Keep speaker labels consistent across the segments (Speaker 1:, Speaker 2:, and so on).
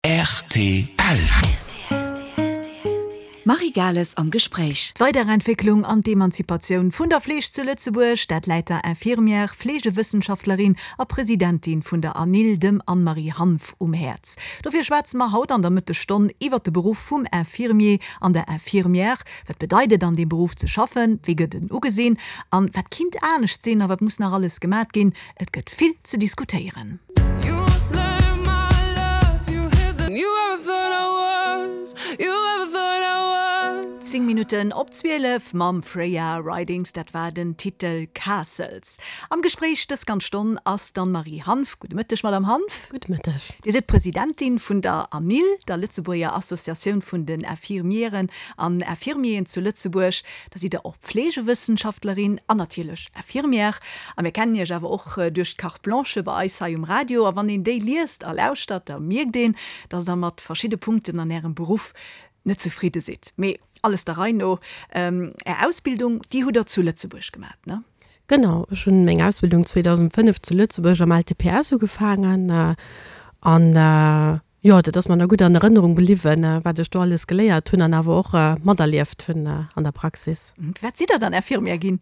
Speaker 1: Rtl.
Speaker 2: D'Marie Gales am Gespréich.
Speaker 3: D'Weiderentwécklung an d'Emanzipatioun vun der Fleeg zu Lëtzebuerg, dat läit der Infirmière, Fleegewëssenschaftlerin a Presidentin vun der ANIL, dem Anne-Marie Hanff, um Häerz. Dofir schwätze mer haut an der Mëttesstonn iwwert de Beruff vum Infirmier an der Infirmière. Wat bedeit et an deem Beruff ze schaffen, wéi gëtt en ugesinn an wat kinnt anescht sinn a wat muss nach alles gemat ginn? Et gëtt vill ze diskutéieren. 10 Minutten op 12 mam Freya Ridings, dat war den Titel Castles. Am Gespréich dës ganz Stonn ass d'Anne-Marie Hanff. Gudde Mëtteg, Madame Hanff.
Speaker 4: Gudde Mëtteg.
Speaker 3: Dir sidd Presidentin vun der ANIL, der Lëtzebuerger Associatioun vun den Infirmieren an Infirmieren zu Lëtzebuerg. Da sidd Der och Pflegewëssenschaftlerin an natierlech Infirmière. A mir kennen Iech awer och duerch d'Carte Blanche bei eis hei um Radio. A wann een déi liest a lauschtert, da mierkt een, dass Der mat verschidde Punkten an Ärem Beruff net zefridde sidd. Mee alles der Rei no, Är Ausbildung, déi hutt Der zu Lëtzebuerg gemat, ne?
Speaker 4: Genau, ech hunn meng Ausbildung 2005 zu Lëtzebuerg am LTPS ugefaangen an Jo, dat ass mer nach gutt an Erënnerung bliwwen, wat ech do alles geléiert hunn an awer och materlieft hunn an der Praxis.
Speaker 3: Wat sidd Der dann Infirmière ginn?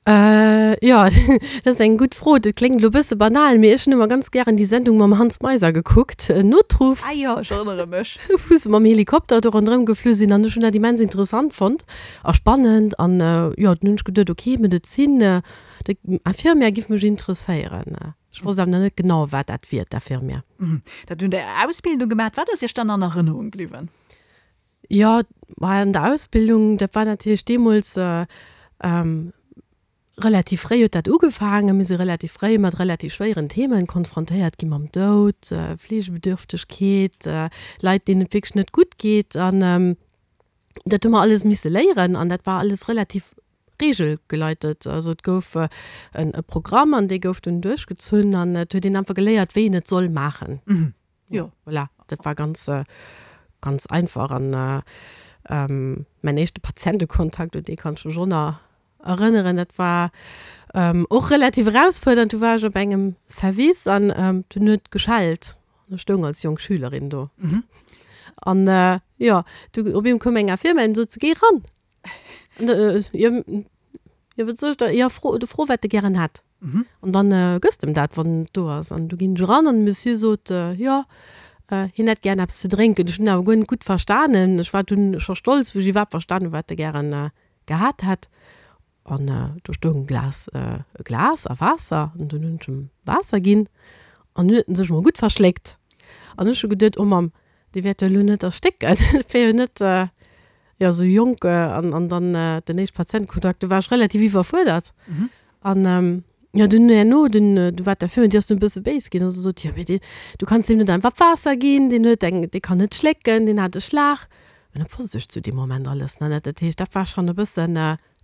Speaker 4: Jo, dat ass eng gutt Fro. Dat kléngt elo e bësse banal, mee ech hunn ëmmer ganz gären déi Sendung mam Hans Meiser gekuckt, Notruf.
Speaker 3: Ah jo, ech erënnere mech.
Speaker 4: Wou se mam Helikopter do ronderëm geflu sinn an ech hunn dat immens interessant fonnt a spannend an jo, dunn hunn ech geduet, ok, Medezin, Infirmière giff mech interesséieren. Ech wosst awer nach net genau, wat dat wier, d'Infirmière.
Speaker 3: Dat hunn der Ausbildung gemaat. Wat ass Iech dann an Erënnerung bliwwen?
Speaker 4: Jo, ma an der Ausbildung, dat war natierlech deemools relativ fréi huet dat ugefaangen. Mir si relativ fréi mat relativ schwéieren Themen konfrontéiert gi mam Doud, Fleegebedürftegkeet, Leit, deenen et wierklech net gutt geet. An dat hu mer alles misse léieren an dat war alles relativ regelgeleitet. Also et gouf e Programm an dee gouf dunn duerchgezunn an et huet een einfach geléiert, wéi een et soll maachen.
Speaker 3: Jo.
Speaker 4: Voilà, dat war ganz, ganz einfach. An mäin éischte Patientekontakt, un dee kann ech mech och nach erënneren, dat war och relativ erausfuerdernd. Du war ech op engem Service an dunn huet geschellt an ech stoung als jonk Schülerin do. An jo, du op eemol koum eng Infirmière an sot, Géi eran! Jo, jo, wat soll ech da, jo, fro, du fro wat de gären hätt. An dann gëss de em dat, wann et do ass. An du ginn ech eran an de Monsieur sot, jo, hien hätt gären eppes ze drénken. Ech hunn awer guer net gutt verstanen. Ech war dunn scho stolz, wou ech iwwerhaapt verstan hunn, wat e gären gehat hätt. An do stoung e Glas, e Glas a Waasser. An dunn hunn ech em Waasser ginn. An dunn huet en sech emol gutt verschléckt. An ech hu geduet, oh Mamm, dee wäert jo elo net erstécken. Et wär jo net, jo, esou jonk an, an dann den éischte Patientekontakt, do war ech relativ iwwerfuerdert. An jo, dunn herno, dunn, du war d'Infirmière, déi ass dunn e bësse béis ginn a se sot, jo, mee dee, du kanns deem net einfach Waasser ginn, deen huet eng, dee kann net schlécken, deen hat e Schlag. An dat wosst ech zu deem Moment alles nach net. Dat heescht, dat war schonn e bëssen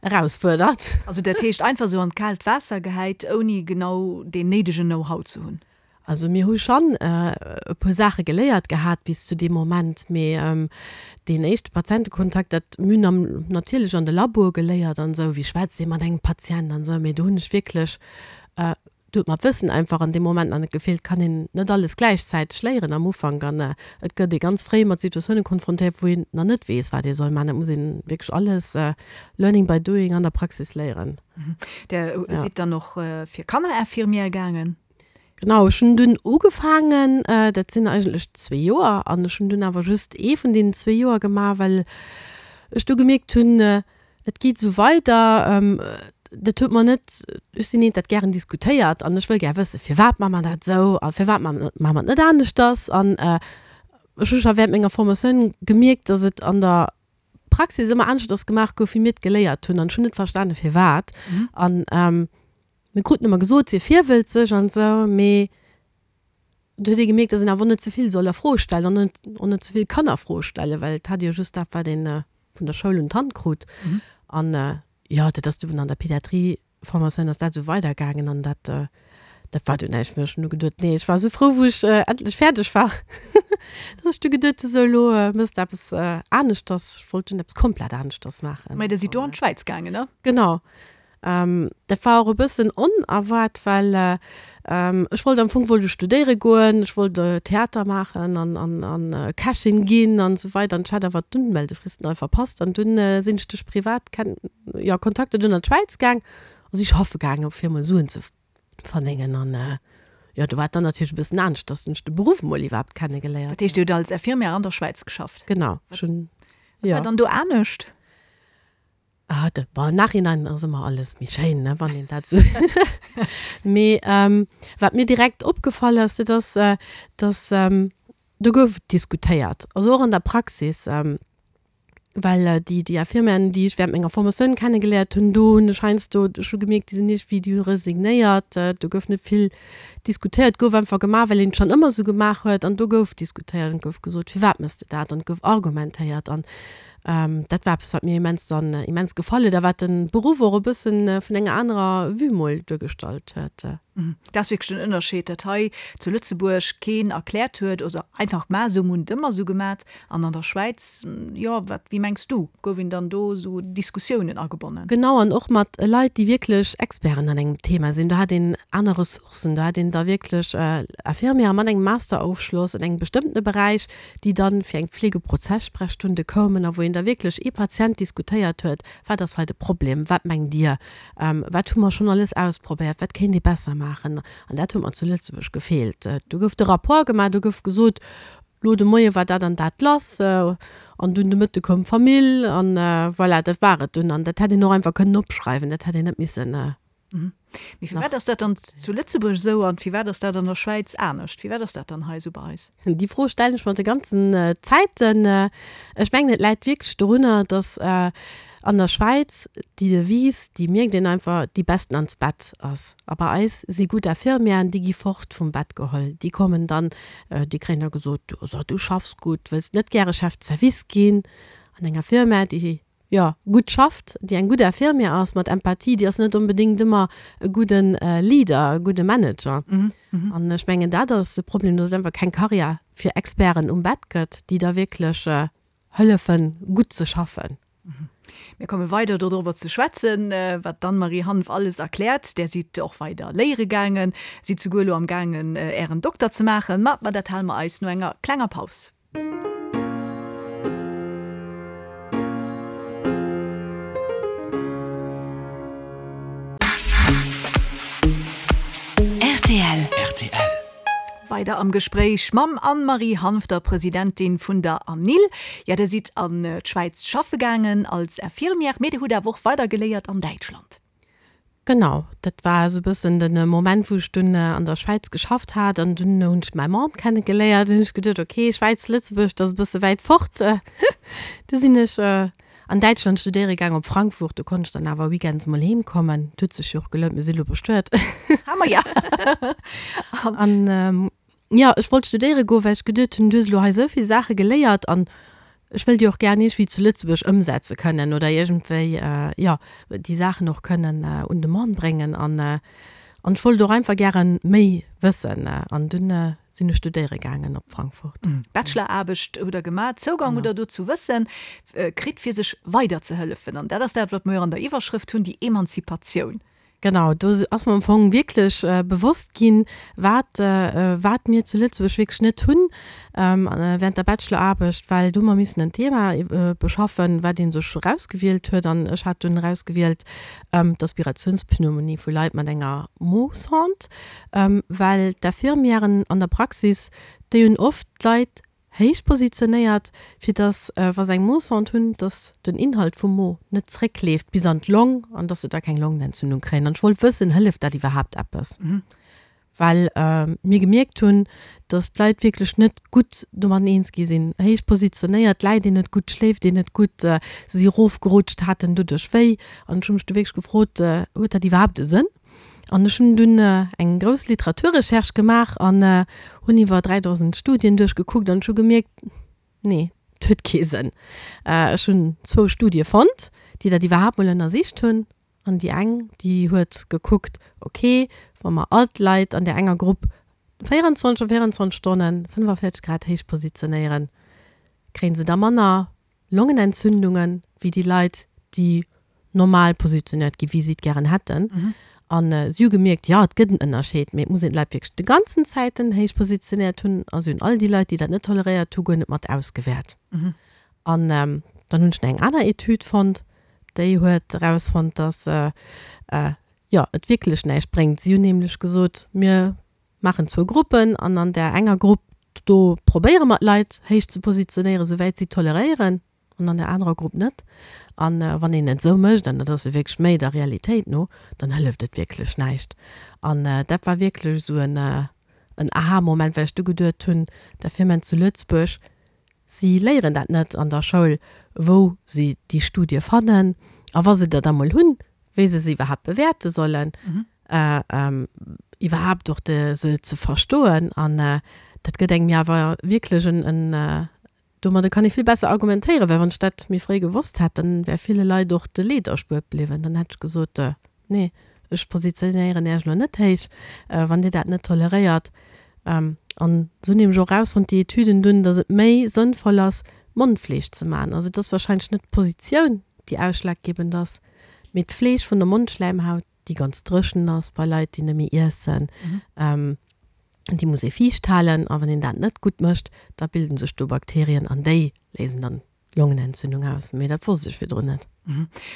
Speaker 4: erausfuerdernd.
Speaker 3: Also dat heescht einfach esou an d'kaalt Waasser gehäit, ouni genau deen néidegen Know-how ze hunn?
Speaker 4: Also mir hu schonn e puer Saache geléiert gehat bis zu deem Moment, mee deen éischte Patientekontakt, dat mir hunn am natierlech an de Laboe geléiert an esou, wéi schwätzt ee mat engem Patient an esou, mee do hunn ech wierklech, do huet mer d'Wëssen einfach an deem Moment nach net gefeelt, kann een net alles gläichzäiteg léieren am Ufank an et gëtt ee ganz fréi mat Situatioune konfrontéiert, wou een nach net weess, wat ee soll maachen. Dat muss een wierklech alles learning by doing an der Praxis léieren.
Speaker 3: Der sidd dann och fir Kannerinfirmière gaangen?
Speaker 4: Genau, ech hunn dunn ugefaangen, dat sinn eigentlech zwee Joer, an ech hunn dunn awer just ee vun deenen zwee Joer gemaach, well ech du gemierkt hunn, et geet esou weider, dat huet mer net, ech sinn eent, dat gären diskutéiert an ech wëll gär wëssen, firwat maache mer dat esou a firwat maache mer et net aneschters. An ech hu scho während menger Formatioun gemierkt, datt et an der Praxis ëmmer aneschters gemaach gouf, wéi mir et geléiert hunn, an ech hunn net verstane firwat. An Mir kruten ëmmer gesot, sief virwëlzeg an esou, mee et huet ee gemierkt, datt een awer och net ze vill soll a Fro stellen an net och net ze vill kann a Fro stellen, well et hat ee jo just dat, wat ee vun der Schoul un d'Hand krut. An jo, dat ass dunn an der Pédiatrie-Formatioun ass dat esou weidergaangen an dat, dat war dunn näischt méi. Ech hunn du geduet, nee, ech war esou frou, wou ech endlech fäerdeg war, datt ech du geduet hu, sou elo méchs de eppes aneschters. Ech wollt dunn eppes komplett aneschters maachen.
Speaker 3: Mä der sidd do an d'Schwäiz gaangen, ne?
Speaker 4: Genau. Dat war och e bëssen onerwaart, well ech wollt am Fong wollt ech studéiere goen, ech wollt Theater maachen an an an Kächin ginn an esou weider an ech hat awer d'Unmeldefristen all verpasst an dunn sinn ech duerch privat Ken jo Kontakter dunn an d'Schwäiz gaang a si schaffe gaangen, fir emol Suen ze verdéngen an jo do war et dann natierlech e bëssen anescht, dass hunn ech de Beruff emol iwwerhaapt kennegeléiert.
Speaker 3: Dat heescht, Dir hutt als Infirmière an der Schwäiz geschafft?
Speaker 4: Genau, ech hunn,
Speaker 3: jo. Wat war dann do anescht?
Speaker 4: Ah, de, bon, am Nachhinein ass ëmmer alles méi schéin, ne, wann een dat esou. Mee wat mir direkt opgefall ass, dat ass, dass do gouf diskutéiert, also och an der Praxis, well déi, déi Infirmièren, déi ech während menger Formatioun kennegeléiert hunn, do hunn ech heiansdo scho gemierkt, déi sinn iergendwéi, déi hu resignéiert, do gouf net vill diskutéiert, gouf einfach gemaach, well een et schonn ëmmer esou gemaach huet an do gouf diskutéiert an et gouf gesot, firwat méchs de dat an et gouf argumentéiert an Dat war eppes, wat mir immens dann immens gefall huet a wat de Beruff och e bëssen vun enger anerer Vue mol duergestallt huet.
Speaker 3: Dat ass wierklech den Ënnerscheed, datt hei zu Lëtzebuerg keen erkläert huet oder einfach ma esou hunn et ëmmer esou gemat an an der Schwäiz, jo, wat, wéi mengs du, gouf een dann do esou Diskussiounen agebonnen?
Speaker 4: Genau, an och mat Leit, déi wierklech Experten an engem Thema sinn. Do hat een aner Ressourcen, do hat een da wierklech Infirmiere mat engem Masterofschloss an engem bestëmmtene Beräich, déi dann fir eng Pflegeprozesssprechstunde koumen a wou een da wierklech ee Patient diskutéiert huet, wat ass hei de Problem, wat mengt Dir, wat hu mer schonn alles ausprobéiert, wat kéint ee besser maachen. An dat huet mer zu Lëtzebuerg gefeelt. Do gouf de Rapport gemaach, do gouf gesot, lo de Moie war dat an dat lass an dunn de Mëtte koum d'Famill an voilà, dat war et dunn. An dat hätt een och einfach kënnen opschreiwen, dat hätt een net missen
Speaker 3: Mee firwat ass dat dann zu Lëtzebuerg esou an firwat ass dat an der Schwäiz anescht? Firwat ass dat dann hei esou bei eis?
Speaker 4: Déi Fro stellen ech mer de ganzen Zäiten. Ech mengen, et läit wierklech dorunner, datt an der Schwäiz déi Devise, déi mierkt een einfach, déi Besten ans Bett ass. A bei eis si gutt Infirmièren, déi gi fort vum Bett geholl. Déi kommen dann, déi kréien da gesot, so du schaffs gutt, wëlls net gäre Chef de service ginn an enger Firma, déi jo, gutt schafft, déi eng gutt Infirmière ass, mat Empathie, déi ass net onbedéngt ëmmer e gudde Leader, e gudde Manager. An ech mengen, dat ass de Problem, dass et einfach keng Karriär fir Experten um Bett gëtt, déi da wierklech hëllefen, gutt ze schaffen.
Speaker 3: Mir komme weider dodrobber ze schwätzen, wat d'Anne-Marie Hanff alles erkläert. Där sidd och weider léiere gaangen, sidd souguer elo am gaangen, Ären Dokter ze maachen. Ma dat hale mer eis no enger klenger Paus.
Speaker 2: Rtl. Rtl.
Speaker 3: Weider am Gespréich mam Anne-Marie Hanff, der Presidentin vun der ANIL. Ja, der sidd an d'Schwäiz schaffe gaangen als Infirmière, mee der hutt awer och weider geléiert an Däitschland.
Speaker 4: Genau, dat war esou e bëssen de Moment, wou ech dunn an der Schwäiz geschafft hat an dunn hunn ech mäi Mann kennegeléiert. Hunn ech geduet, ok, Schwäiz, Lëtzebuerg, dat ass e bësse wäit fort. Du sinn ech an Däitschland studéiere gaang, op Frankfurt. Do konnt ech dann awer weekends mol heem kommen. Et huet sech jo och gelount, mir si lo bestuet.
Speaker 3: Ha mer ja.
Speaker 4: An Jo, ech wollt studéiere goen, well ech geduet hunn, du hues elo hei esou vill Saache geléiert an ech wëll déi och gär iergendwéi zu Lëtzebuerg ëmsetze kënnen oder iergendwéi, jo, déi Saachen och kënnen un de Mann bréngen. An an ech wollt och einfach gäre méi wëssen an dunn sinn ech studéiere gaangen op Frankfurt.
Speaker 3: Bacheloraarbecht hutt Der gemaach, Zougang hutt Der do zu Wëssen kritt, fir sech weiderzehëllefen. An dat ass dat, wat mer jo an der Iwwerschrëft hunn, déi Emanzipatioun.
Speaker 4: Genau, do ass mer am Fong wierklech bewosst ginn, wat, wat mir zu Lëtzebuerg wierklech net hunn während der Bacheloraarbecht, well do hu mer missen en Thema beschaffen, wat ee sech erausgewielt huet. An ech hat dunn erausgewielt d'Aspirationspneumonie vu Leit mat enger Mo-Sonde, well d'Infirmièren an der Praxis, déi hunn oft d'Leit héich positionéiert, fir dass, wa se eng Mo-Sonde hunn, dass den Inhalt vum Mo net zréckleeft bis an d'Long an dass se da keng Longenentzündung kréien. An ech wollt wëssen, hëlleft dat iwwerhaapt eppes? Well mir gemierkt hunn, dass d'Leit wierklech net gutt domatten eens gi sinn. Héich positionéiert, läit een net gutt, schléift een net gutt, se si erofgerutscht, haten doduerch wéi. An ech hu mech du wierklech gefrot, huet dat iwwerhaapt e Sënn? An ech hunn dunn eng grouss Literaturrecherche gemaach an hunn iwwer 3.000 Studien duerchgekuckt an ech hu gemierkt, nee, et huet kee Sënn. Ech hunn zwou Studie fonnt, déi dat iwwerhaapt mol ënnersicht hunn. An déi eng, déi huet gekuckt, ok, wa mer all d'Leit an där enger Grupp 24 a 24 Stonnen 45 Grad héich positionéieren, kréie se da manner Longenentzündungen wéi déi Leit, déi. normal positionéiert ginn, wéi si et gären hätten. An si hu gemierkt, jo, et gëtt en Ënnerscheed, mee et muss een d'Leit wierklech de ganzen Zäiten héich positionéiert hunn. A si hunn all déi Leit, déi dat net toleréiert hu, guer net mat ausgewäert. An dann hunn ech nach eng aner Etüd fonnt, déi huet erausfonnt, dass, jo, et wierklech näischt bréngt. Si hunn nämlech gesot, mir maachen zwou Gruppen an an där enger Grupp, do probéiere mer d'Leit héich ze positionéieren, souwäit si toleréieren, an an der anerer Grupp net. A wann een et esou mécht, an dat ass jo wierklech méi der Realitéit no, dann hëlleft et wierklech näischt. An dat war wierklech esou en Aha-Moment, well ech du geduet hunn, d'Infirmieren zu Lëtzebuerg, si léieren dat net an der Schoul, wou si déi Studie fannen a wa se der da mol hunn, wéi se se iwwerhaapt bewäerte sollen, iwwerhaapt och se ze verstoen. An dat gëtt engem jo awer wierklech en Domadder kann ee vill besser argumentéieren, well wann ech dat méi fréi gewosst hätt, dann wär ville Leit och de Leed erspuert bliwwen. Dann hätt ech gesot, Nee, ech positionéieren Iech elo net héich, wann Dir dat net toleréiert. An se hunn nämlech och erausfonnt, déi Etüden dunn, datt et méi sënnvoll ass, Mondfleeg ze maachen. Also et ass wahrscheinlech net d'Positioun, déi ausschlaggebend ass, mee d'Fleeg vun der Mondschläimhaut, déi ganz dréchen ass bei Leit, déi net méi iessen. Déi muss ee fiicht halen a wann een dat net gutt mécht, da bilden sech do Bakterien an déi léisen dann d'Longenentzündung aus. Mee dat wosst ech virdrun net.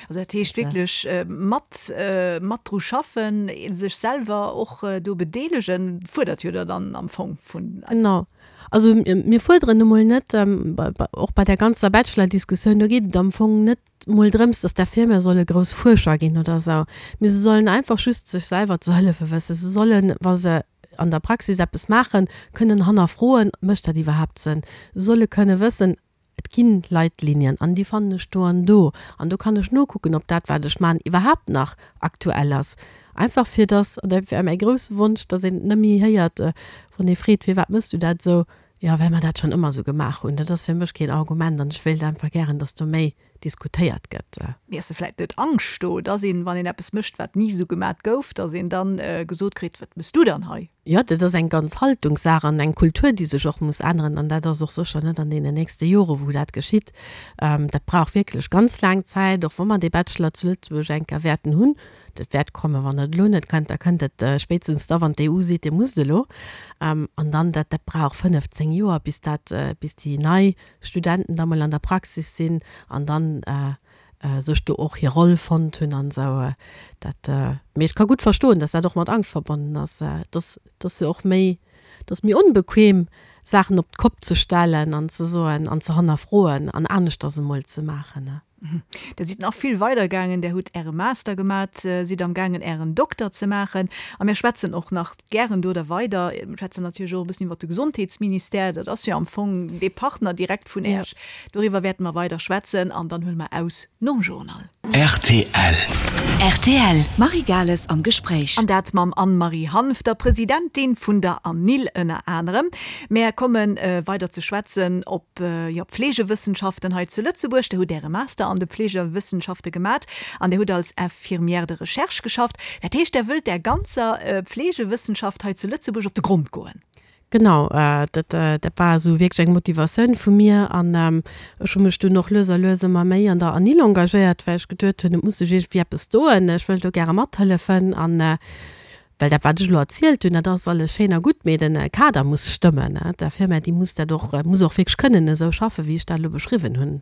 Speaker 3: Also dat heescht wierklech mat mat dru schaffen, sech selwer och do bedeelegen, fuerdert jo der dann am Fong vun.
Speaker 4: Genau. Also mir fuerderen emol net, och bei där ganzer Bachelor-Diskussioun, do geet et am Fong net mol drëms, dass d'Infirmiere solle grouss Fuerscher ginn oder esou, mee se sollen einfach just sech selwer ze hëllefe wëssen. Se sollen, wa se an der Praxis eppes maachen, kënnen hannerfroen, Mécht dat iwwerhaapt Sënn? Se solle kënne wëssen, Et gi Leitlinien an déi fannen ech do an do an do kann ech nokucken, ob dat, wat ech maachen, iwwerhaapt nach aktuell ass. Einfach fir dass, an dat wär mäi grousse Wonsch, dass een et net méi héiert, wann ee freet, Firwat méchs du dat esou? Jo, well mer dat schonn ëmmer esou gemaach hunn. Dat ass fir mech keen Argument an ech wéilt einfach gären, dass do méi diskutéiert gëtt.
Speaker 3: Mee ass da vläit net Angscht do, dass een, wann een eppes mécht, wat ni esou gemat gouf, dass een dann gesot kritt, Wat mëss du dann hei?
Speaker 4: Jo, dat ass eng ganz Haltungssaach an eng Kultur, déi sech och muss änneren. An dat ass och sécher net an deenen nächste Jore wou dat geschitt. Dat brauch wierklech ganz laang Zäit, och wa mer dee Bachelor zu Lëtzebuerg eng Kéier wäerten hunn. Dat wäert kommen, wann et elo net kënnt, da kënnt et spéitstens da, wann d'EU seet, Dir musst elo. An dann, dat, dat brauch 15 Joer, bis dat, bis déi nei Studenten da mol an der Praxis sinn an dann sech do och hir Roll fonnt hunn an esou. Dat, mee ech ka gutt verstoen, dass dat och mat Angscht verbonnen ass. Et ass, et ass jo och méi, et ass méi onbequem, Saachen op d'Kopp ze stellen an ze soen an ze hannerfroen an aneschters emol ze maachen.
Speaker 3: Der sidd nach vill weider gaangen, Der hutt Äre Master gemat, sidd am gaangen Ären Dokter ze maachen a mir schwätzen och nach gären do da weider. Mir schwätzen natierlech och e bëssen iwwert de Gesondheetsministère, dat ass jo am Fong dee Partner direkt vun Äech. Doriwwer wäerte mer weider schwätzen an dann huele mer aus nom Journal.
Speaker 2: Rtl. Rtl, D'Marie Gales am Gespréich.
Speaker 3: An dat mam Anne-Marie Hanff, der Presidentin vun der ANIL ënner anerem. Mär komme weider ze schwätzen op jo, Pflegewëssenschaften hei zu Lëtzebuerg. Der hutt Äre Master an de Pflegewëssenschafte gemat an Der hutt als Infirmière de recherche geschafft. Dat heescht, Der wëllt där ganzer Pflegewëssenschaft hei zu Lëtzebuerg op de Grond goen?
Speaker 4: Genau, dat dat war esou wierklech eng Motivatioun vu mir an ech hu mech dunn och lues a lues ëmmer méi an der ANIL engagéiert, well ech geduet hunn, et muss sech iergendwéi eppes doen, ech wëll do gäre mathëllefen an well dat wat ech elo erzielt hunn, dat ass alles schéin a gutt, mee de Kader muss stëmmen. D'Infirmière, déi muss dat och, muss och wierklech kënnen esou schaffen, wéi ech dat elo beschriwwen hunn.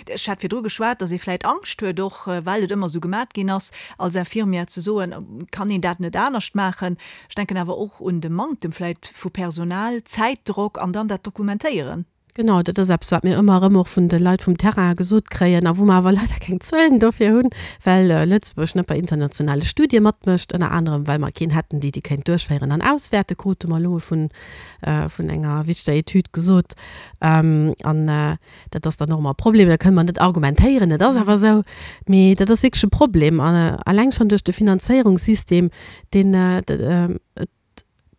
Speaker 3: Ech hat virdru geschwat, datt ee vläit Angscht huet, och well et ëmmer esou gemat ginn ass, als Infirmière ze soen, kann een dat net anescht maachen. Ech denken awer och un de Manktem vläit vu Personal, Zäitdrock an dann dat Dokumentéieren.
Speaker 4: Genau, dat ass eppes, wat mir ëmmer erëm och vun de Leit vum Terrain gesot kréien a wou mer awer leider keng Zuelen dofir hunn, well Lëtzebuerg net bei internationale Studie matmécht, ënner anerem well mer keen hätten, déi déi kéint duerchféieren an auswäerten, krute mer elo vun vun enger wichteger Etüd gesot. An dat ass dann och ëmmer e Problem, da kënne mer net argumentéieren, et ass awer esou. Mee dat ass wierklech e Problem, alleng schonn duerch de Finanzéierungssystem, deen et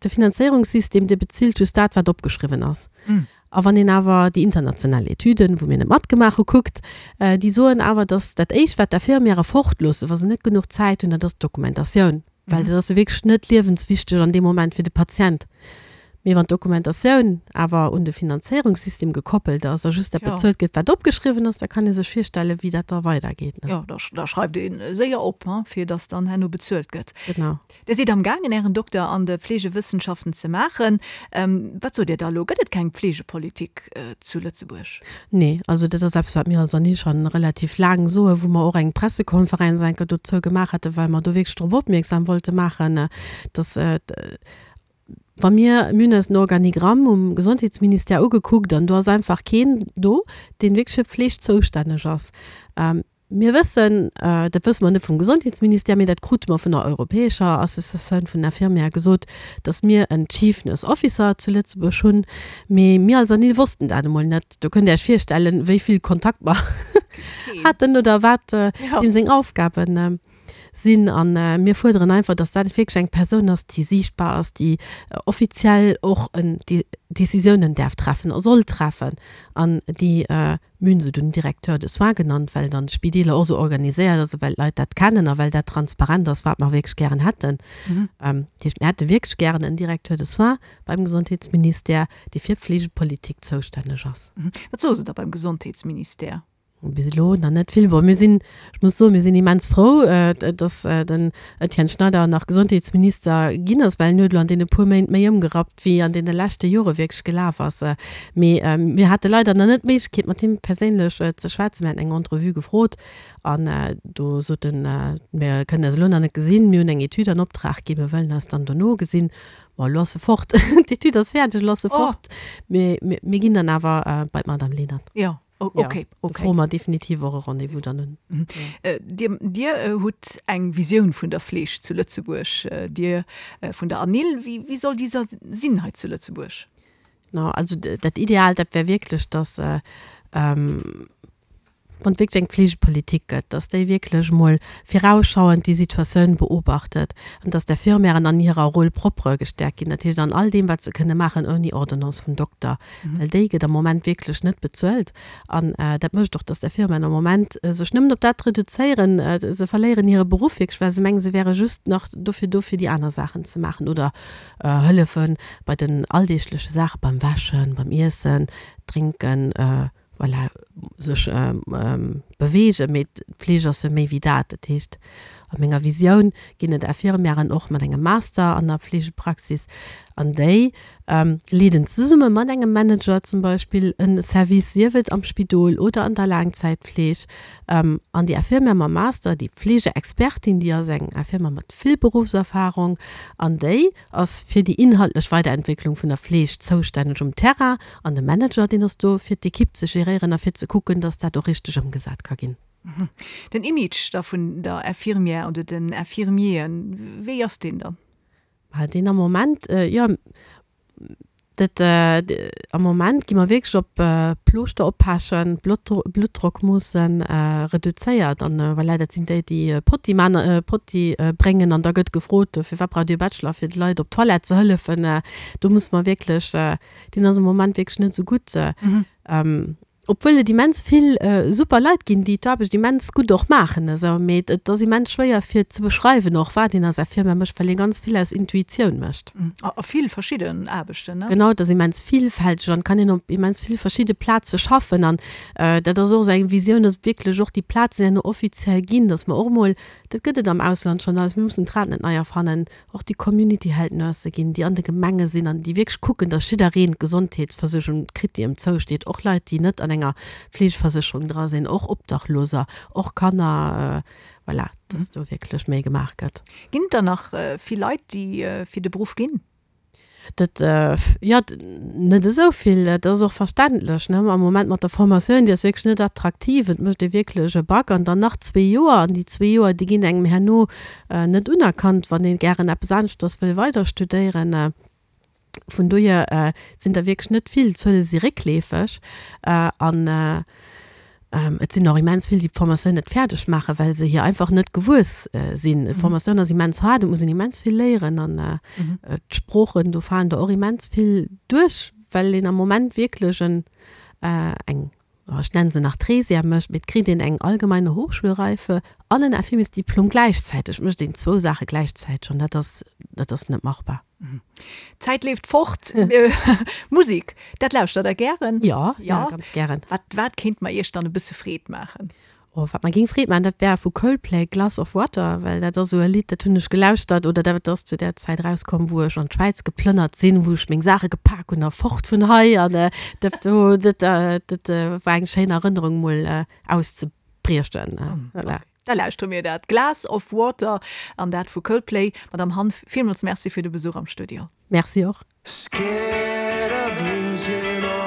Speaker 4: De Finanzéierungssystem, dee bezilt just dat, wat opgeschriwwen ass. A wann een awer déi international Etüden, wou mir net matgemaach hu, kuckt, déi soen awer, datt dat Éischt, wat d'Infirmièrë fortloossen, wa se net genuch Zäit hunn, dat ass d'Dokumentatioun. Well dat ass jo wierklech net liewenswichteg an deem Moment fir de Patient. Mee wann d'Dokumentatioun awer un de Finanzéierungssystem gekoppelt ass a just dat bezuelt gëtt, wat opgeschriwwen ass, da kann ee sech virstellen, wéi dat da weidergeet.
Speaker 3: Jo, da schreift ee séier op, fir datt dann herno bezuelt gëtt.
Speaker 4: Genau.
Speaker 3: Dir sidd amgaangen, Ären Dokter an de Fleegewëssenschaften ze maachen. Wat sot Dir da elo? Gëtt et keng Pflegepolitik zu Lëtzebuerg?
Speaker 4: Nee, also dat ass eppes, wat mir als ANIL scho relativ laang soen, wou mer och eng Pressekonferenz eng Kéier dozou gemaach haten, well mer do wierklech drop opmierksam wollte maachen, dass, wa mir, mir hunn eis den Organigramm um Gesondheetsministère ugekuckt an do ass einfach keen do, deen wierklech fir d'Fleeg zoustänneg ass. Mir wëssen, dat wësse mer net vum Gesondheetsministère, mee dat krute mer vun der europäescher Associatioun vun den Infirmièrë gesot, datt mir en Chief Nurse Officer zu Lëtzebuerg hunn. Mee mir als ANIL wossten dat emol net. Do kënnt Dir Iech virstellen, wéi vill Kontakt mer haten oder wat deem seng Aufgabe sinn. A mir fuerderen einfach, datt dat wierklech eng Persoun ass, déi siichtbar ass, déi offiziell och déi Décisiounen däerf treffen a soll treffen an déi Mir hunn se dunn Directeur de soins genannt, well et an de Spideeler och esou organiséiert ass a well d'Leit dat kennen a well dat transparent ass, wat mer wierklech gären hätten. Dat heescht, mir hätte wierklech gären en Directeur de soins beim Gesondheetsministère, dee fir d'Fleegepolitik zoustänneg ass.
Speaker 3: Wat soe se da beim Gesondheetsministère?
Speaker 4: Bis elo nach net vill. Bon, mir sinn, ech muss soen, mir sinn immens frou, datt den Etienne Schneider nach Gesondheetsminister ginn ass, well en huet elo an deene puer Méint méi ëmgerappt, wéi an deene leschte Jore wierklech gelaf ass. Mee mir hate leider nach net d'Méiglechkeet, mat him perséinlech ze schwätzen. Mir haten eng Entrevue gefrot an do sot en, Mir kënnen eis elo nach net gesinn, mir hunn eng Etüd an Optrag ginn, mir wëllen eis dann dono gesinn. Bon, elo ass e fort, d'Etüd ass fäerdeg, elo ass e fort. Mee mir ginn dann awer bei d'Madame Lenert.
Speaker 3: Jo. Oh, okay,
Speaker 4: okay. Do froe mer definitiv och e Rendez-vous dann un.
Speaker 3: Mhm. Äh, dir, dir äh, hutt eng Visioun vun der Fleeg zu Lëtzebuerg, äh, dir äh, vun der ANIL. Wéi, wéi soll déi sinn hei zu Lëtzebuerg?
Speaker 4: No, also dat Ideal, dat wär wierklech, dass äh, ähm, wann et wierklech eng Fleegepolitik gëtt, dass déi wierklech emol virausschauend déi Situatioun beobachtet an dass d'Infirmièren an hirer Rôle propre gestärkt ginn, dat heescht an all deem, wat se kënne maachen ouni Ordonnance vum Dokter. Well déi gëtt am Moment wierklech net bezuelt. An dat mécht och, dass d'Infirmièren am Moment sech nëmmen op dat reduzéieren. Se verléieren hire Beruff wierklech, well se mengen, se wäre just nach dofir do, fir déi aner Saachen ze maachen oder hëllefe bei den alldeegleche Saache beim Wäschen, beim Iessen, Drénken. Voilà, sech beweegen, mee d'Fleeg ass jo méi wéi dat. Dat heescht, a menger Visioun ginn et Infirmièren och mat engem Master an der Fleegepraxis an déi leeden zesumme mat engem Manager zum Beispill e Service, sief et am Spidol oder an der Laangzäitfleeg. An déi Infirmière mam Master, déi Fleegeexpertin, déi ass eng Infirmière mat vill Beruffserfarung an déi ass fir déi inhaltlech Weiderentwécklung vun der Fleeg zoustänneg um Terrain an de Manager, deen ass do fir d'Ekipp ze geréieren a fir ze kucken, dass dat och richteg ëmgesat ka ginn.
Speaker 3: Den Image da vun der Infirmière oder den Infirmieren, wéi ass deen dann?
Speaker 4: Deen am Moment, jo, Dat, am Moment gi mer wierklech op Plooschter oppechen, Bluttdrock moossen, reduzéiert. An voilà, dat sinn déi, déi Potti man, Potti bréngen. An da gëtt gefrot, firwat braucht Dir e Bachelor, fir de Leit op d'Toilette ze hëllefen. Do musse mer wierklech, deen ass am Moment wierklech net esou gutt. Obwuel et immens vill super Leit ginn, déi d'Aarbecht immens gutt och maachen esou, mee et ass immens schwéier fir ze beschreiwen och wat een als Firma mécht, well ee ganz vill aus Intuitioun mécht.
Speaker 3: A vill verschidden Aarbechten, ne?
Speaker 4: Genau, et ass immens villfälteg an et kann een op immens vill verschidde Plaze schaffen an dat ass och esou eng Visioun, dass wierklech och déi Plazen herno offiziell ginn, dass mer och emol, dat gëtt et am Ausland schonn alles, mir mussen d'Rad net nei erfannen, och déi Community Health Nurse ginn, déi an de Gemenge sinn an déi wierklech kucken, dass jiddereen d'Gesondheetsversuergung kritt, déi ëm zousteet, och Leit, déi net an enger Fleegeversécherung dra sinn, och Obdachloser, och Kanner, voilà, dass do wierklech méi gemaach gëtt.
Speaker 3: Ginn et der nach vill Leit, déi fir de Beruff ginn?
Speaker 4: Dat, jo, net esou vill. Dat ass och verständlech, ne? Am Moment mat der Formatioun, déi ass wierklech net attraktiv. Et mécht ee wierklech e Bac an dann nach zwee Joer. An déi zwee Joer, déi ginn engem herno net unerkannt, wann ee gären eppes aneschters wëll weider studéieren. Vun dohier sinn der wierklech net vill. D'Zuele si réckleefeg. An Et sinn och immens vill, déi d'Formatioun net fäerdeg maachen, well se hir einfach net gewuess sinn. D'Formatioun ass immens haart, et muss een immens vill léieren an d'Sproochen, do falen der och immens vill duerch, well een am Moment wierklech en, eng, ech nennen se nach Trésième mécht, mee et kritt een eng allgemeine Hochschulreife an en Infirmiersdiplom gläichzäiteg. Et mécht een zwou Saache gläichzäiteg an dat ass, dat ass net machbar.
Speaker 3: D'Zäit leeft fort. Musek, dat lauschtert Der gären?
Speaker 4: Jo, jo, ganz gären.
Speaker 3: Wat, wat kéint mer Iech dann e bësse Freed maachen?
Speaker 4: Oh, wat mer géing Freed maachen, dat wär vu Coldplay Glass of Water, well dat ass esou e Lidd, dat hunn ech gelauschtert oder dat ass zu där Zäit erauskomm, wou ech an d'Schwäiz geplënnert sinn, wou ech meng Saache gepak hunn a fort vun hei an dat do, dat, dat war eng schéin Erënnerung mol auszebriechen.
Speaker 3: Voilà. Da lauschtere mir dat, Glass of Water an dat vu Coldplay. Madamm Hanff, villmools Merci fir de Besuch am Studio.
Speaker 4: Merci och. Scared of losing all.